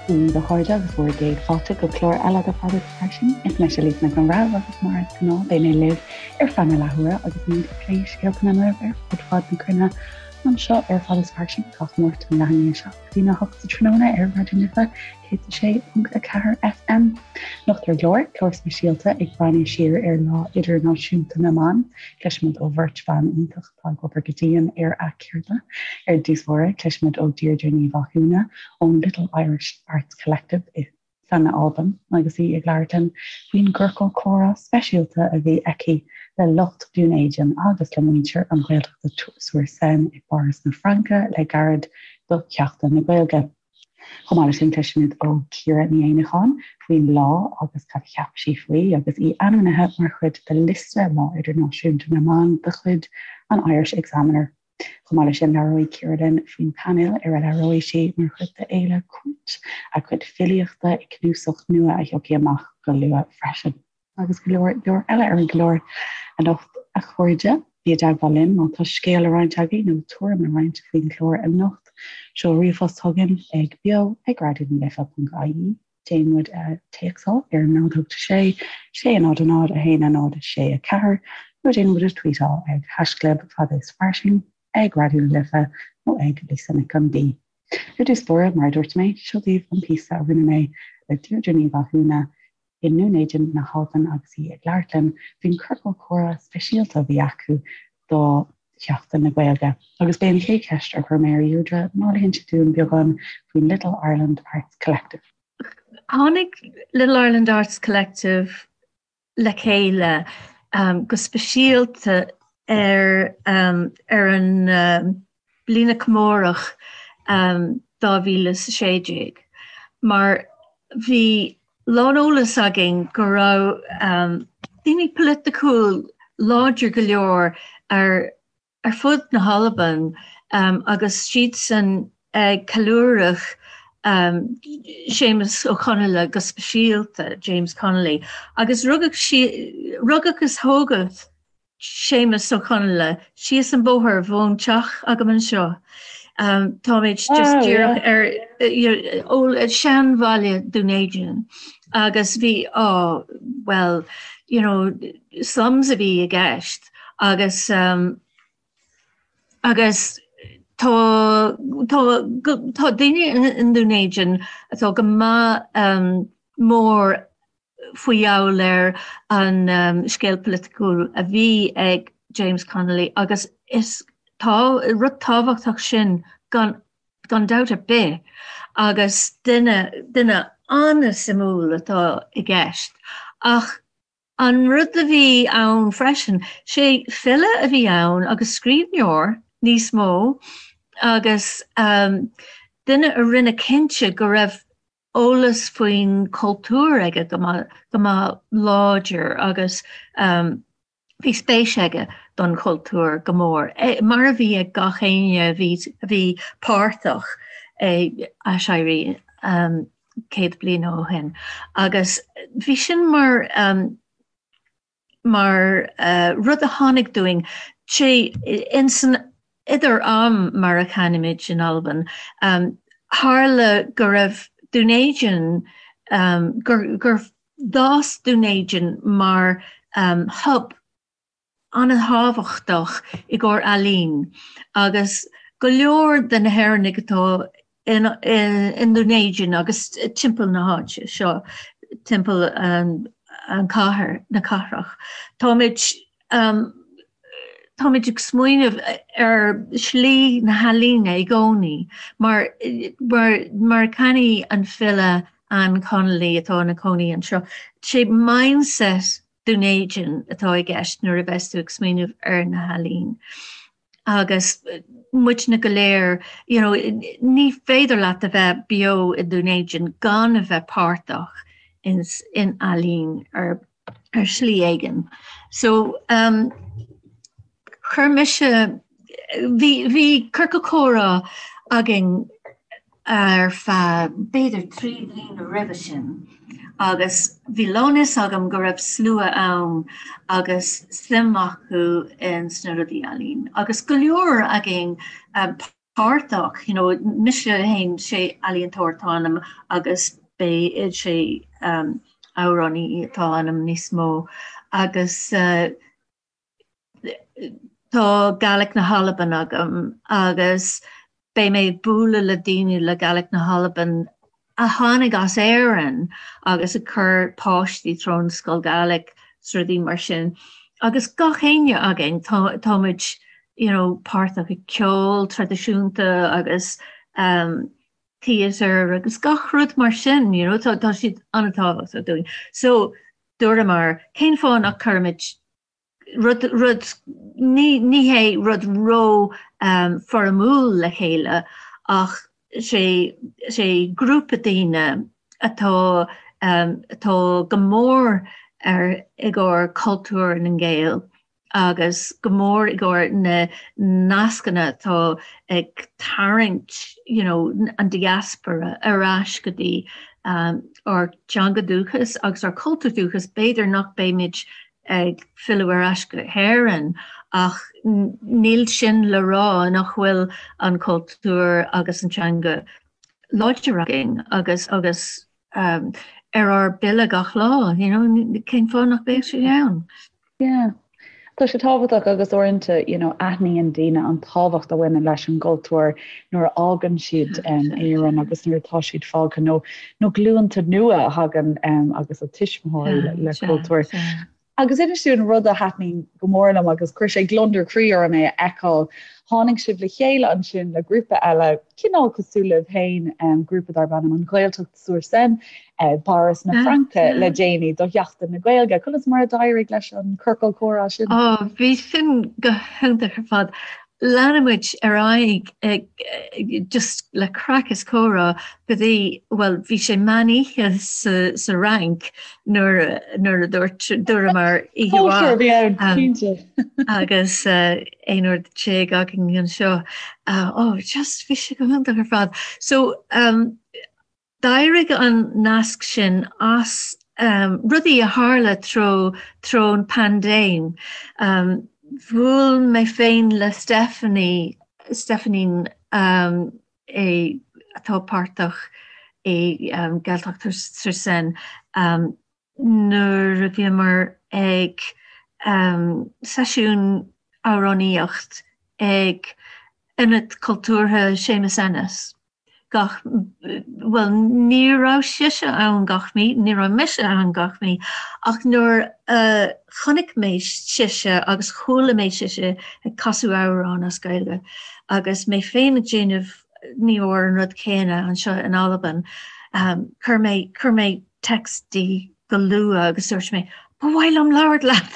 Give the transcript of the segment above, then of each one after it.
Dia daoibh a chairde agus bhur gcéad fáilte go clár eile de Fada is Fairsing. Is mise Lisa Nic an Bhreithimh agus mar is gnáth beidh mé libh ar feadh na leathuaire agus muid ag plé scéalta na nGael ar fud fad na cruinne anseo ar Fada is Fairsing gach Máirt ón leath i ndiaidh 7 go dtí a 8 sa tráthnóna ar Raidió na Life 106.4 FM. Anocht ar an gclár, clár speisialta ag breathnú siar ar Lá Idirnáisiúnta na mBan. Cloisfimid ó bheirt bhan iontach atá ag obair go dian ar a gceird. Ar dtús báire, cloisfimid ó Deirdre Ní Mhathúna ón Little Irish Arts Collective i san Albain agus í ag labhairt linn faoin gciorcal comhrá speisialta a bhí aici le lucht Dún Éideann agus le muintir an Ghaeltachta sur Seine i bPáras na Fraince le gairid do Sheachtain na Gaeilge. Chomh maith leis sin, cloisfimid ó Ciara Ní Éanacháin faoin lá agus cad a cheap sí faoi agus í ainmnithe mar chuid de liosta Lá Idirnáisiúnta na mBan de chuid an Irish Examiner. Chomh maith leis sin, labhróidh Ciara linn faoin bpainéal ar a labhróidh sí mar chuid de Fhéile Cúirt, a cuid filíochta i gcnuasach nua a thiocfaidh amach go luath freisin. Agus go leor leor eile ar an gclár anocht, a chairde. Bí i dteagmháil linn má tá scéal le roinnt agaibh nó tuairim le roinnt faoin gclár anocht. Seol ríomhphost chugainn ag beo ag raidionalife.ie. Déan muid a téacsáil ar 0 8 6 6 0 0 1 0 6 4 nó déan muid a tweetáil ag haischlib fada is fairsing, ag Raidió na Life nó ag Lisa Nic an B. Ar dtús báire, mar a dúirt mé, seo daoibh an píosa a rinne mé le Deirdre Ní Mhathúna i nDún Éideann na hAlban agus í ag labhairt linn faoin chiorcal comhrá speisialta a bhí acu do Sheachtain na Gaeilge. Agus b'é an chéad cheist a chuir mé ar Dheirdre ná le hinse dúinn beagán faoin Little Ireland Arts Collective. Tháinig Little Ireland Arts Collective le chéile go speisialta ar ar an bliana comórach 2016 mar bhí lán-eolas againn go raibh daoine polaitiúil láidir go leor ar ar fud na hAlban agus siadsan ag ceiliúradh Séamus Ó Conghaile go speisialta, James Connolly, agus rugadh rugadh is tógadh Séamus Ó Conghaile síos an bóthar ón teach agam anseo. Táimid just díreach ar seanbhaile Dún Éideann agus bhí á well you know slums a bhí i gceist agus agus tá tá tá daoine i nDún Éideann atá go maith mór faoi gheall ar an scéal polaitiúil a bhí ag James Connolly agus is tá rud tábhachtach sin gan gan dabht ar bith agus duine duine an-suimiúil atá i gceist. Ach an rud a bhí ann freisin, sé file a bhí ann agus scríbhneoir níos mó agus duine a rinne cinnte go raibh eolas faoin chultúr aige go maith go maith láidir agus bhí spéis aige don chultúr go mór, mar a bhí ag gach éinne a bhí a bhí páirteach ag Aiséirí 100 bliain ó shin. Agus bhí sin mar mar rud a tháinig dúinn, sé insan idir am mar a chainimid in Albain, tharla go raibh Dún Éideann, gur gur d'fhás Dún Éideann mar hub an-tábhachtach i gcomhair ealaín agus go leor de na hÉireannaigh atá i nDún Éideann agus timpeall na háite seo, timpeall an cathair, na cathrach. Táimid táimid ag smaoineamh ar shlí na healaíne i gcónaí mar mar mar a chainigh an file Anne Connolly atá ina cónaí anseo, sé mindset Dún Éideann atá i gceist nuair a bheas tú ag smaoineamh ar na healaín. Agus muidne go léir, you know, ní féidir leat a bheith beo i nDún Éideann gan a bheith páirteach in, in ealaín ar, ar shlí éigin. So, um, chuir mise, bhí, bhí ciorcal comhrá againn ar feadh b'fhéidir 3 bliana roimhe sin agus bhí lán-fhios agam go raibh slua ann agus suim acu in sna rudaí ealaín agus go leor againn. Páirteach, you know, mise féin, sé ealaíontóir atá ionam agus beidh sé amhránaí atá ionam níos mó agus tá Gaelic na hAlban agam agus beidh mé ag bualadh le daoine le Gaelic na hAlban a tháinig as Éirinn agus ag cur páistí trón scoil Gaelic 's rudaí mar sin. Agus gach éinne againn tá tá muid you know páirteach i ceol traidisiúnta agus um theatre agus gach rud mar sin you know tá tá siad an-tábhachtach dúinn. So dúramar cén fáth nach cuirimid rud, rud, ní, ní hé rud ró foirmiúil le chéile ach sé, sé grúpa daoine atá, atá go mór ar, i gcomhair cultúr na nGael agus go mór i gcomhair na nascanna atá ag tarraingt you know an diaspora ar ais go dtí ár dteanga dúchas agus ár cultúr dúchas, b'fhéidir nach mbeimid ag filleadh ar ais go hÉirinn ach níl sin le rá nach bhfuil an cultúr agus an teanga láidir againn agus agus ar ár bpille gach lá, you know, cén fáth nach mbeadh sé ann? Yeah. Tá sé tábhachtach agus uaireanta, you know, aithníonn daoine an tábhacht a bhaineann leis an gcultúr nuair a fhágann siad Éirinn agus nuair atá siad fágtha nó nó glúnta nua a thagann agus a tuismitheoirí le cultúr. Agus inis dúinn rud a thaitníonn go mór liom agus chuir sé gliondar croí orm é a fheiceáil. Tháinig sibh le chéile ansin le grúpa eile, cineál cosúil libh féin, grúpa darb ainm An Ghaeltacht sur Seine, i bPáras na Fraince le déanaí do Sheachtain na Gaeilge. Conas mar a d'éirigh leis an ciorcal comhrá sin? Ó, bhí sin go hiontach ar fad. Lean muid ar aghaidh ag just le craic is comhrá go dtí, bhuel, bhí sé meán oíche sa sa Fhrainc nuair nuair a dúirt dúramar oíche mhaith. Cóisir a bhí ann, cinnte. Agus 11 uair againn anseo. Ó, just bhí sé go hiontach ar fad. So, um, D'éirigh an nasc sin as rudaí a tharla treo an paindéim. Bhuail mé féin le Stephanie, Stephanie atá páirteach i Gaeltacht sur Seine, nuair a bhíomar ag seisiún amhránaíocht ag Ionad Cultúrtha Séamus Ennis. Gach, bhuel, ní raibh sise ann gach mí, ní raibh mise ann gach mí, ach nuair a chonaic mé sise agus chuala mé sise ag casadh amhrán as Gaeilge agus mé féin ag déanamh ní mór an rud céanna anseo in Albain, chuir mé, chuir mé text di go luath agus dúirt mé, Ba mhaith liom labhairt leat!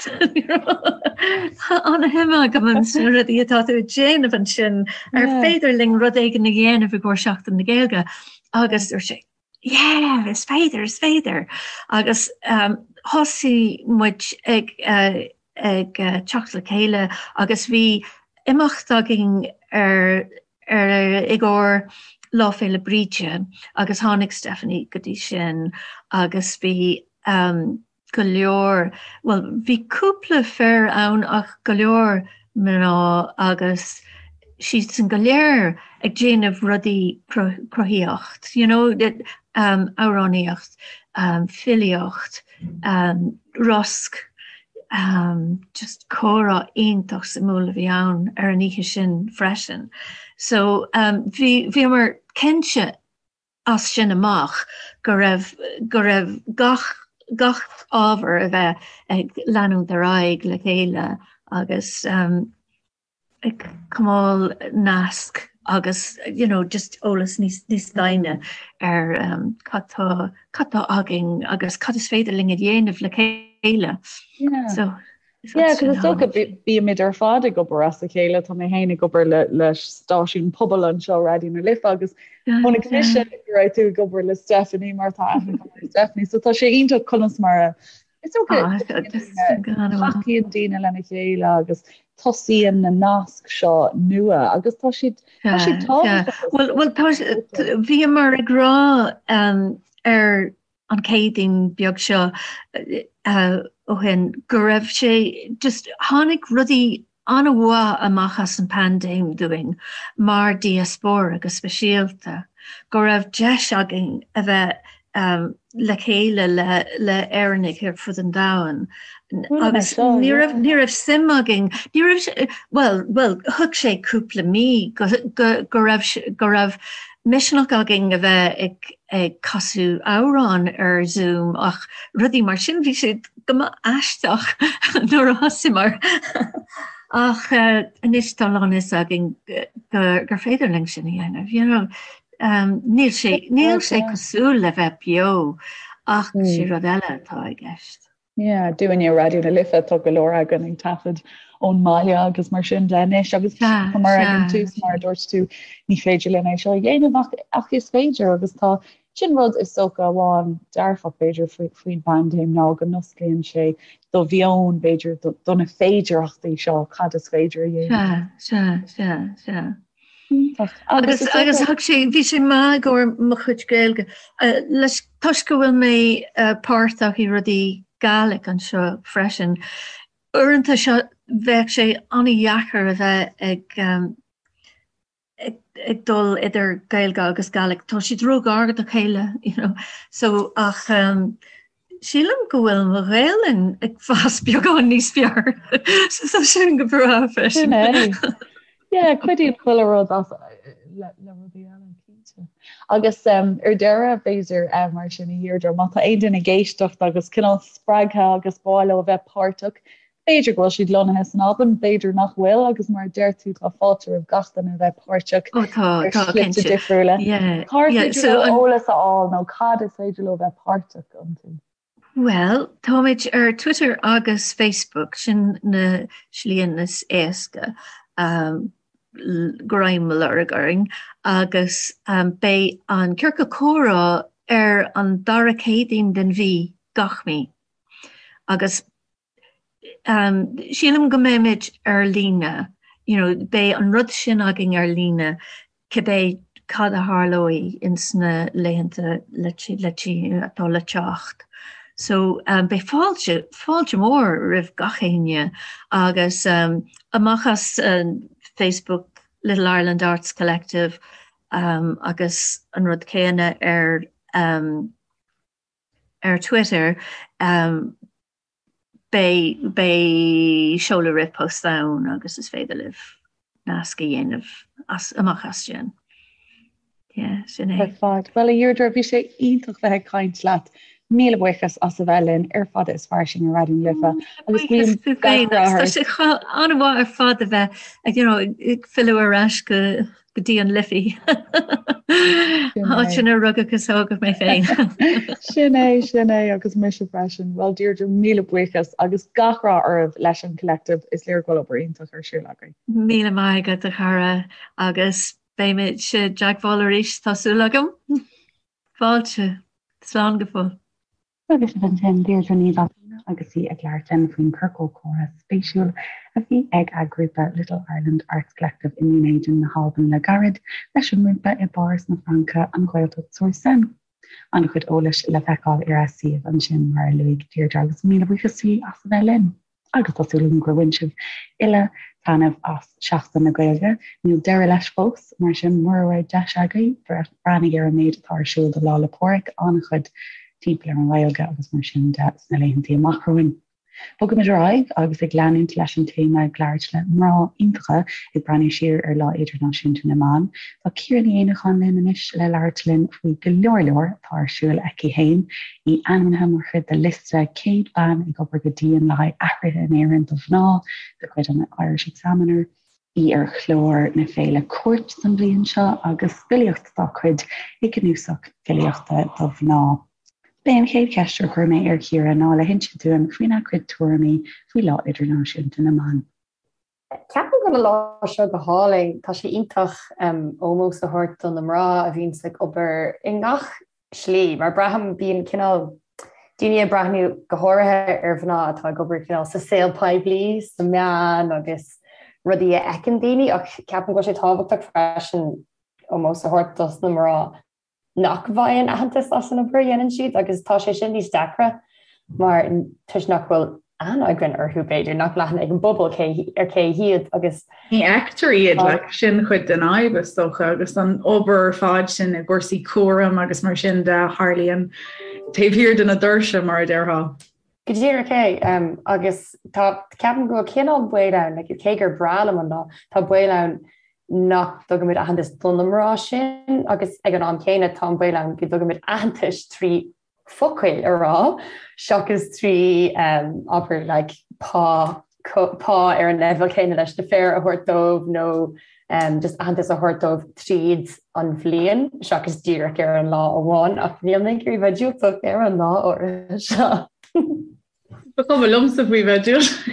Tá an-shuim agam sna rudaí atá tú ag déanamh ansin, ar féidir linn rud éigin a dhéanamh i gcomhair Seachtain na Gaeilge? Agus dúirt sí, Yeah, is féidir, is féidir! Agus thosaigh muid ag ag teacht le chéile agus bhí imeacht againn ar ar i gcomhair Lá Féile Bríde agus tháinig Stephanie go dtí sin agus bhí go leor, bhuel bhí cúpla fir ann ach go leor mná agus siadsan go léir ag déanamh rudaí cruthaíocht, you know, amhránaíocht, filíocht, rosc, just comhrá iontach suimiúil a bhí ann ar an oíche sin freisin. So bhí, bhíomar cinnte as sin amach go raibh, go raibh gach, gach ábhar a bheith ag leanúint ar aghaidh le chéile agus ag coinneáil nasc agus you know just eolas níos níos doimhne ar um, cad tá cad tá againn agus cad is féidir linn a dhéanamh le chéile. Yeah. So Yeah, cos is dócha bímid ar fad ag obair as a chéile, tá mé féin ag obair le le stáisiún pobail anseo Raidió na Life agus chonaic mise go raibh tú ag obair le Stephanie mar tá aithne agam ar Stephanie, so tá sé iontach conas mar a Is dócha tacaíonn daoine lena chéile agus tosaíonn na naisc seo nua agus tá siad tá siad tábhachtach. Bhuel bhuel tá bhíomar ag rá ar an Céadaoin beag seo ó shin go raibh sé just tháinig rudaí. an-mhaith amach as an paindéim dúinn mar diaspóra go speisialta, go raibh deis againn a bheith le chéile le le Éireannaigh ar fud an domhain agus ní raibh ní raibh suim againn, ní raibh, bhuel, bhuel, thug sé cúpla mí go go go raibh go raibh misneach againn a bheith ag ag casadh amhrán ar Zoom ach rudaí mar sin, bhí siad go maith aisteach nuair a thosaíomar. Ach anois tá lán fhios againn gur féidir linn sin a dhéanamh, you know. Níl sé, níl sé cosúil le bheith beo ach sé rud eile atá i gceist. Yeah, dúinne Raidió na Life tá go leor againn ag taifead ón mbaile agus mar sin de anois agus mar ag an tús mar a dúirt tú ní féidir linn é seo a dhéanamh ach, ach is féidir agus tá sin rud is dócha amháin dearfach b'fhéidir faoin bpaindéim ná go n-osclaíonn sé do mheon b'fhéidir do na féidearthachtaí seo cad is féidir a dhéanamh. Sea, sea, sea, sea. Agus agus thug sé bhí sé maith i gcomhair mo chuid Gaeilge leis toisc go bhfuil mé páirteach i rudaí Gàidhlig anseo freisin. Uaireanta seo bheadh sé an-dheacair a bheith ag ag dul idir Gaeilge agus Gàidhlig. Tá siad ró-ghar do chéile, you know. So ach sílim go bhfuil mo Ghaelainn ag fás beagán níos fearr. So tá sin go breá freisin. Sin é. Yeah, cuidíonn chuile rud as le le rudaí eile, cinnte. Agus um, ar deireadh b'fhéidir um, mar sin a Dheirdre, má tá aon duine ag éisteacht agus cineál spreagtha agus ba mhaith leo a bheith páirteach, B'fhéidir go bhfuil siad lonnaithe san Albain, b'fhéidir nach bhfuil, agus mar a deir tú, tá fáilte roimh gach duine a bheith páirteach Ó tá, ar tá, shlite cinnte. difriúla. Yeah, Cár yeah, féidir so leo an, eolas a fháil nó cad is féidir leo bheith páirteach iontu? Bhuel, táimid ar Twitter agus Facebook, sin na slíanna is éasca um, greim a lorg orainn, agus um, beidh an Ciorcal Comhrá ar an dara Céadaoin den mhí, gach mí. Agus Sílim go mbeimid ar líne, you know, beidh an rud sin againn ar líne cibé cad a tharlóidh ins na laethanta le le atá le teacht. So beidh fáilte, fáilte mhór roimh gach éinne agus amach as Facebook Little Ireland Arts Collective agus an rud céanna ar ar Twitter, beidh, beidh seoladh ríomhphost ann agus is féidir libh nasc a dhéanamh as, amach as sin. Yeah, sin é. Ar fad. Bhuel, a Dheirdre, bhí sé iontach bheith ag caint leat. Míle buíochas as a bheith linn ar Fada is Fairsing ar Raidió na Life. Agus guím gach rath ort. Tá sé an-mhaith ar fad a bheith ag, you know, ag filleadh ar ais go go dtí an Liffey. Áit inar rugadh is tógadh mé féin. Sin é, sin é agus mise freisin. Bhuel Deirdre, míle buíochas agus gach rath oraibh leis an Collective, is léir go bhfuil obair iontach ar siúl agaibh. Míle maith agat a chara agus beimid i dteagmháil arís, tá súil agam. Fáilte. Slán go fóill. Agus sin ansin Deirdre Ní Mhathúna agus í ag labhairt linn faoin chiorcal comhrá spéisiúil a bhí ag a grúpa Little Ireland Arts Collective i nDún Éideann na hAlban le gairid, leis an ngrúpa i bPáras na Fraince, an Ghaeltacht sur Seine. An-chuid eolais le feiceáil ar a suíomh ansin mar a luaigh Deirdre agus míle buíochas di as a bheith linn. Agus tá súil agam gur bhain sibh uile taitneamh as Seachtain na Gaeilge. Níl deireadh leis fós, mar sin mura raibh deis agaibh, breathnaigh ar an méid atá ar siúl do Lá 'le Pádraig, an-chuid timpeall ar an nGaeilge agus mar sin de sna laethanta amach romhainn. Bogaimid ar aghaidh agus ag leanúint leis an téama ag labhairt le mná iontacha ag breathnú siar ar Lá Idirnáisiúnta na mBan. Tá Ciara Ní Éanacháin linn anois le labhairt linn faoi go leor leor atá ar siúl aici féin. Í ainmnithe mar chuid de liosta 100 bean ag obair go dian le haghaidh athruithe in Éirinn do mhná de chuid an Irish Examiner, í ar chlár na féile Cúirt don bhliain seo agus filíocht dá cuid i gcnuasach filíochta do mhná. B'é an chéad cheist a chuir mé ar Chiara ná le hinse dúinn faoina cuid tuairimí faoi Lá Idirnáisiúnta na mBan. Ceapaim go bhfuil an lá seo go hálainn. Tá sé iontach ómós a thabhairt do na mná a bhíonns ag obair i ngach slí, mar braithim bíonn cineál daoine ag breathnú go háirithe ar mhná atá ag obair cineál sa saol poiblí, sna meáin agus rudaí a fheiceann daoine ach ceapaim go bhfuil sé tábhachtach freisin ómós a thabhairt dos na mná nach bhfaigheann aitheantas as an obair a dhéanann siad agus tá sé sin níos deacra mar toisc nach bhfuil. aithne againn orthu, b'fhéidir, nach bhfuil aithne ag an bpobal cé ar cé hiad agus. Ní fheictear iad, like, sin cuid den fhadhb is dócha agus an obair ar fad sin i gcúrsaí cúraim agus mar sin de a tharlaíonn taobh thiar de na doirse, mar a déarfá. Go díreach é, agus tá, ceapaim go bhfuil cineál baol ann, like, cé gur breá liom an lá, tá baol ann nach dtugaimid aitheantas do na mná sin agus ag an am céanna tá an baol ann go dtugaimid aitheantas trí focail a rá seachas trí, abair, like, pá, pá ar an leibhéal céanna leis na fir a thabhairt dóibh nó just aitheantas a thabhairt dóibh tríd an bhliain seachas díreach ar an lá amháin ach níl mé ag iarraidh bheith diúltach ar an lá áirithe seo. Ba chuma liomsa faoi bheith diúltach.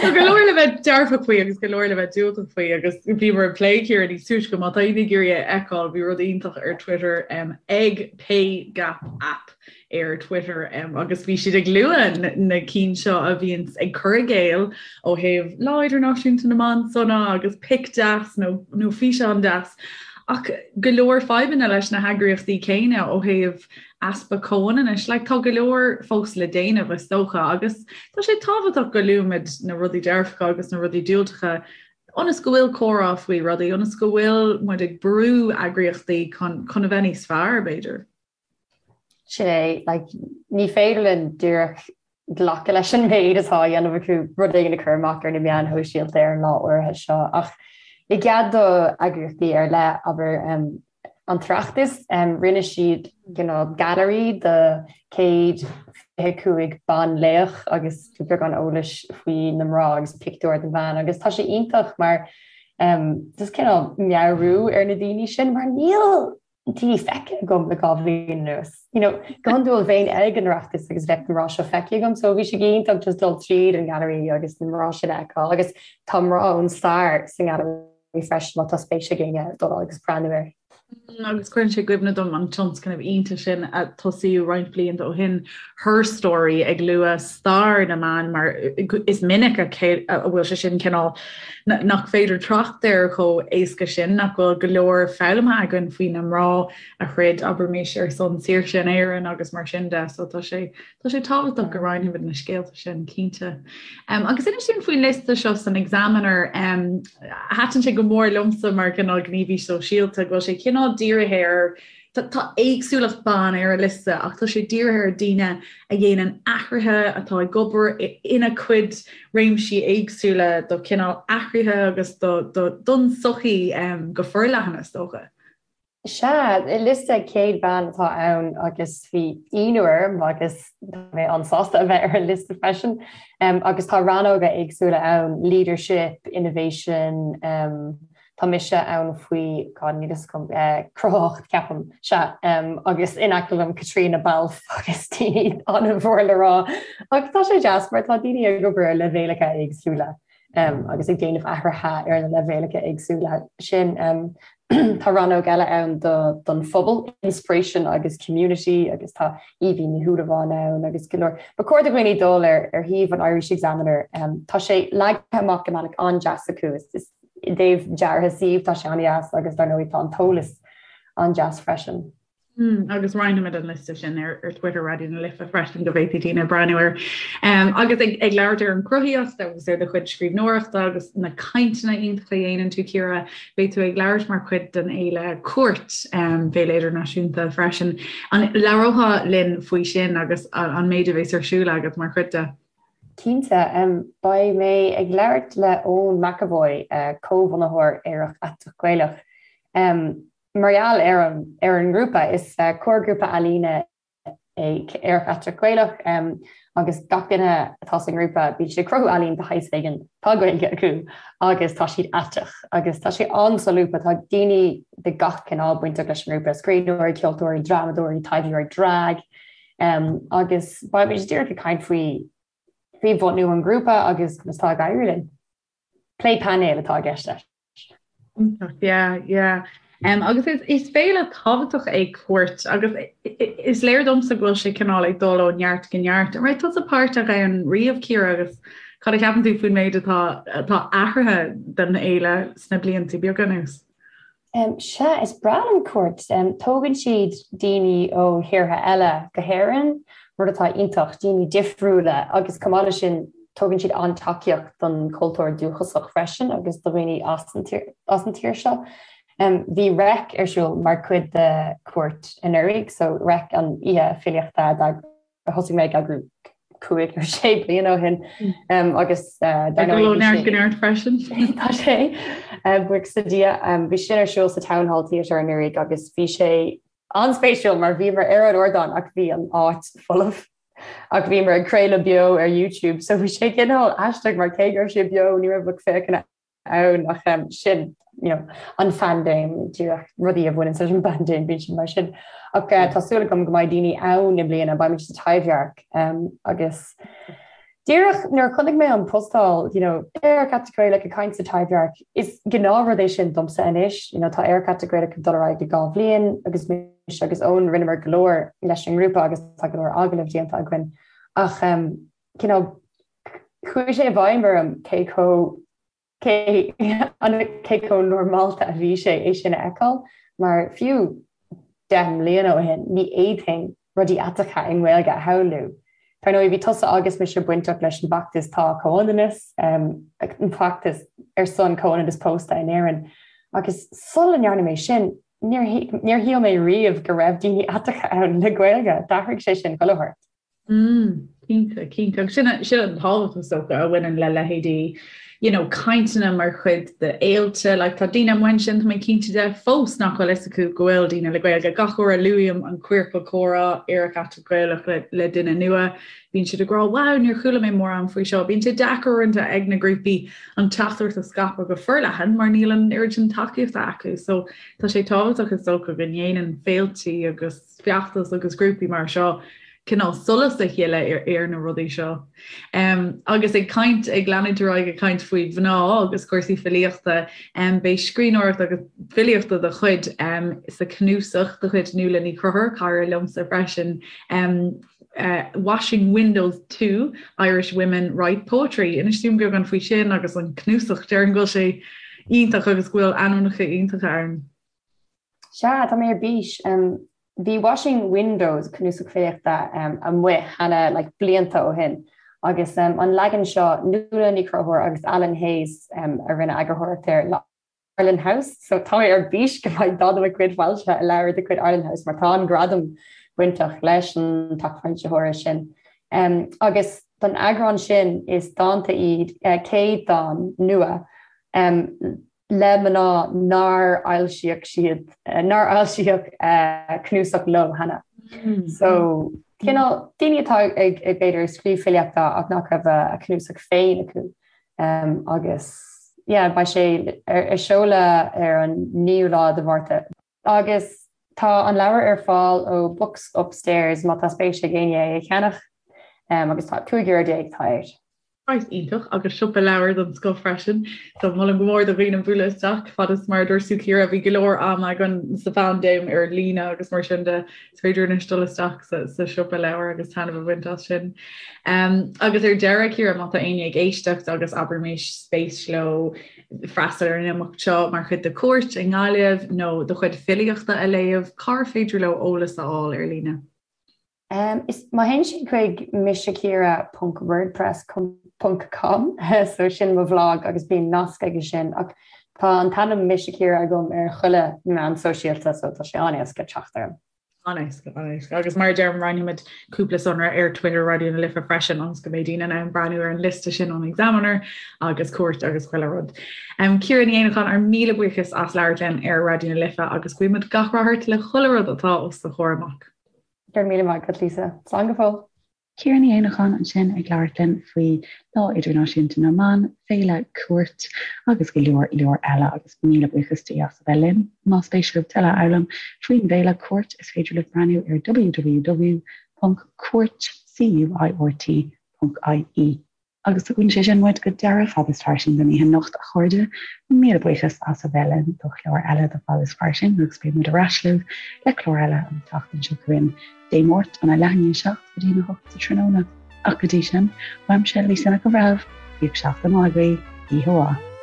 Tá go leor le bheith dearfach faoi agus go leor le bheith diúltach faoi agus bhíomar ag plé Ciara níos túisce má tá éinne ag iarraidh é a fheiceáil bhí rud iontach ar Twitter ag Pay Gap App ar Twitter agus bhí siad ag lua na cinn seo a bhíonn ag cur i gcéill ó thaobh Lá Idirnáisiúnta na mBan sona agus pic deas nó nó físeán deas ach go leor fadhbanna leis na heagraíochtaí céanna ó thaobh easpa comhionannais. Like, tá go leor fós le déanamh is dócha agus tá sé tábhachtach go luaimid na rudaí dearfacha agus na rudaí diúltacha ionas go bhfuil comhrá faoi rudaí, ionas go bhfuil muid ag brú eagraíochtaí chun chun a bheith níos fearr, b'fhéidir. Sin é, like, ní féidir linn díreach glacadh leis an méid atá á dhéanamh acu, rud éigin a chur amach ar na meáin shóisialta ar an lá áirithe seo. Ach i gcead do eagraíochtaí ar leith, abair, an tOireachtas, rinne siad cineál gailearaí de 125 banlaoch agus beagán eolais faoi na mná agus pictiúr den bhean agus tá sé iontach mar just cineál meabhrú ar na daoine sin mar níl daoine feicthe agam le 2 bhliain anuas. You know, go hiondúil bheinn ag an Oireachtas agus bheadh na mná seo feicthe agam, so bhí sé go hiontach just dul tríd an ngallery agus na mná sin a fheiceáil agus tá mná ón stair sa ngallery freisin má tá spéis ag éinne dul agus breathnú air. Agus cuireann sé i gcuimhne dom an tionscnamh iontach sin a tosaíodh roinnt blianta ó shin, Her Story, ag lua stair na mban mar is minic a bhfuil sé sin cineál nach féidir trácht air chomh éasca sin, nach bhfuil go leor foghlamtha againn faoi na mná a throid, abraimis, ar son saoirse in Éirinn agus mar sin de. So tá sé tá sé tábhachtach go roinnfimid na scéalta sin, cinnte. Um, agus inis dúinn faoin liosta seo san Examiner, um, thaitin sé go mór liomsa mar cineál gníomhaí sóisialta, go bhfuil sé cineál dírithe ar Tá éagsúlacht ban ar an liosta ach tá sé dírithe ar daoine a dhéanann athruithe, atá ag obair ina gcuid réimsí éagsúla do chineál athruithe agus don tsochaí go forleathan, is dócha. Sea, liosta 100 bean atá ann agus bhí ionadh orm agus tá mé an-sásta a bheith ar an liosta freisin. Agus tá rannóga éagsúla ann, leadership, innovation, Tá mise ann faoi, God, níl fhios agam, cruthaitheacht, ceapaim, sea, agus in aice liom Caitríona Balfe agus daoine an-mhór le rá. Ach tá sé deas mar tá daoine ag obair ar leibhéalacha éagsúla agus ag déanamh athruithe ar na leibhéalacha éagsúla sin. Tá rannóg eile ann don phobal, inspiration agus community agus tá Aoibhín Ní Shúilleabháin ann agus go leor. Ba chóir do dhaoine dul ar shuíomh an Irish Examiner. Tá sé leagtha amach i mbealach an-deas acu. Is I dtaobh deartha suímh, tá sé an-deas agus dar ndóigh tá an t-eolas an-deas freisin. Mm, agus roinnfimid an liosta sin ar, ar Twitter Raidió na Life freisin go bhféadfaidh daoine breathnú air. Um, agus ag, ag labhairt ar an gcruthaíocht agus ar do chuid scríbhneoireachta agus na cainteanna iontacha a dhéanann tú Ciara, beidh tú ag labhairt mar chuid den fhéile Cúirt um, Féile Idirnáisiúnta freisin. An labhrófá linn faoi sin agus an, an méid a bheas ar siúl agat mar chuid de? Cinnte. Beidh mé ag labhairt le Eoin McEvoy, comhbhunaitheoir Aerach Aiteach Gaelach, mar gheall ar an ar an ngrúpa. Is comharghrúpa ealaíne é Aerach Aiteach Gaelach agus gach duine atá sa ngrúpa bíonn siad ag cruthú ealaín de shaghas éigin, tá Gaeilge acu agus tá siad aiteach agus tá sé an-solúbtha. Tá daoine de gach cineál bainteach leis an ngrúpa, scríbhneoirí, ceoltóirí, drámadóirí, taibheoirí drag, Agus beimid díreach ag caint faoi faoi bhunú an ghrúpa agus conas tá ag éirí linn. Plé painéil atá i gceist leis. Iontach, yeah, yeah. Um, agus is, is féile tábhachtach é Cúirt agus is léir domsa go bhfuil sé cineál ag dul ó neart go neart. An raibh tusa páirteach ann riamh, Ciara, agus cad a cheapann tú faoin méid atá, atá athraithe den fhéile sna blianta beaga anuas? Sea, is breá liom Cúirt. Tógann siad daoine ó thíortha eile go hÉirinn, rud atá iontach, daoine difriúla agus chomh maith leis sin tugann siad an-tacaíocht don chultúr dúchasach freisin agus do dhaoine as an tír seo. Bhí Reic ar siúl mar chuid de Cúirt anuraidh, so Reic an oíche filíochta a thosaigh mé ag eagrú 5 nó 6 bliana ó shin agus dar ndóigh neart go neart freisin. Tá sé buíochas le Dia. Bhí sin ar siúl sa Town Hall Theatre anuraidh agus bhí sé an-spéisiúil mar bhíomar ar an ardán ach bhí an áit folamh ach bhíomar ag craoladh beo ar YouTube so bhí sé cineál aisteach mar cé go raibh sé beo ní raibh lucht féachana ann ach sin you know, an phaindéim, díreach rudaí a bhaineann leis an bpaindéim, bíonn siad mar sin. Ach tá súil agam go mbeidh daoine ann i mbliana, beimid sa Taibhdhearc agus díreach nuair a chonaic mé an postáil, you know, Aerach Aiteach Gaelach ag caint sa Taibhdhearc, is gnáthrud é sin domsa anois, you know, tá Aerach Aiteach Gaelach ag dul ar aghaidh le 2 bhliain agus mise agus Eoin rinneamar go leor leis an ngrúpa agus tá go leor agallamh déanta againn ach um, cineál Chuaigh sé i bhfeidhm orm cé chomh cé cé chomh normálta a bhí sé é sin a fheiceáil, mar fiú 10 mbliana ó shin ní fhéadfainn rudaí aiteacha i nGaeilge a shamhlú. Dar ndóigh bhí tusa agus mise bainteach leis an bhfeachtas Tá Comhionannas, an feachtas ar son comhionannas pósta in Éirinn, agus sula ndearna mé sin níor níor shíl mé riamh go raibh daoine aiteacha ann le Gaeilge. D'athraigh sé sin chuile shórt. Mm, cinnte, cinnte. Agus sin, sin an tábhacht is dócha a bhaineann le leithéidí, you know, cainteanna mar chuid de fhéilte, like tá daoine amuigh ansin, tá mé cinnte de, fós nach bhfuil fhios acu go bhfuil daoine le Gaeilge. Gach uair a luaim an Queercal Comhrá, Aerach Aiteach Gaelach le, le duine nua, bíonn siad ag rá, wow, níor chuala mé mórán faoi seo. Bíonn sé deacair uaireanta ag na grúpaí an teachtaireacht a scaipeadh go forleathan mar níl an oiread sin tacaíochta acu. So tá sé tábhachtach is dócha go ndéanann féiltí agus feachtais agus grúpaí mar seo cineál solas a shileadh ar na rudaí seo. Agus ag caint, ag leanúint ar aghaidh ag caint faoi mhná agus cúrsaí filíochta, beidh scríbhneoireacht agus filíocht de do chuid sa chnuasach de chuid Nuala Ní Chonchúir, cara liomsa freisin, Washing Windows 2, Irish Women Write Poetry. Inis dúinn beagán faoi sin agus an cnuasach, déarfainn go bhfuil sé iontach agus go bhfuil ainmneacha iontacha ann. Sea, tá mé ar bís. Bhí Washing Windows, cnuasach filíochta, amuigh cheana like blianta ó shin agus an leagan seo, Nuala Ní Chonchúir agus Alan Hayes a rinne eagarthóireacht air le Arlen House, so tá mé ar bís go mbeidh dán de mo chuid foilsithe i leabhar de chuid Arlen House mar tá an-ghradam bainteach leis an teach foilsitheora sin. Agus don eagrán sin is dánta iad, 100 dán nua le mná nár fhoilsíodh siad, nár fhoilsíodh cnuasach leo cheana. So, cineál daoine atá ag, b'fhéidir, ag scríobh filíochta ach nach raibh a cnuasach féin acu. Agus, yeah, beidh sé ar seoladh ar an 9ú lá de Mhárta. Agus tá an leabhar ar fáil ó Books Upstairs má tá spéis ag éinne é a cheannach agus tá €15 atá air. Praghas iontach agus siopa leabhar den scoth freisin. So molaim go mór do dhaoine bualadh isteach fad is mar a dúirt tú Ciara bhí go leor ama againn sa phaindéim ar líne agus mar sin de is féidir anois dul isteach sa, sa siopa leabhar agus taitneamh a bhaint as sin. Um, agus ar deireadh Ciara má tá éinne ag éisteacht agus abraimis spéis leo freastal ar an imeacht seo mar chuid de Cúirt i nGaillimh nó do chuid filíochta a léamh, cár féidir leo eolas a fháil ar líne? Is má théann siad chuig miseciara ponc wordpress ponc com so sin mo bhlag agus bíonn nasc aige sin ach tá an t-ainm Mise Ciara agam ar chuile meán sóisialta so tá sé an-éasca teacht orm. An-éasca, an-éasca. Agus mar a deirim, roinnfimid cúpla sonra ar Twitter Raidió na Life freisin ionas go mbeidh daoine in ann breathnú ar an liosta sin ón Examiner agus Cúirt agus chuile rud. Um, Ciara Ní Éanacháin, ár míle buíochas as labhairt linn ar Raidió na Life agus guímid gach rath ort le chuile rud atá os do chomhair amach. Go raibh míle maith agat, Lisa. Slán go fóill. Ciara Ní Éanacháin ansin ag labhairt linn faoi Lá Idirnáisiúnta na mBan, Féile Cúirt agus go leor leor eile agus míle buíochas di as a bheith linn. Más spéis libh tuilleadh a fhoghlaim faoin bhféile Cúirt is féidir libh breathnú ar www.cuairt.ie. Agus tugann sé sin muid go deireadh Fad is Fairsing don oíche anocht, a chairde. Míle buíochas as a bheith linn do chlár eile de Fad is Fairsing agus beidh muid ar ais libh le clár eile an tseachtain seo chugainn, Dé Máirt, óna leath i ndiaidh 7 go dtí a 8 sa tráthnóna. Ach go dtí sin, uaimse, Lisa Nic an Bhreithimh, bíodh seachtain mhaith agaibh, oíche mhaith.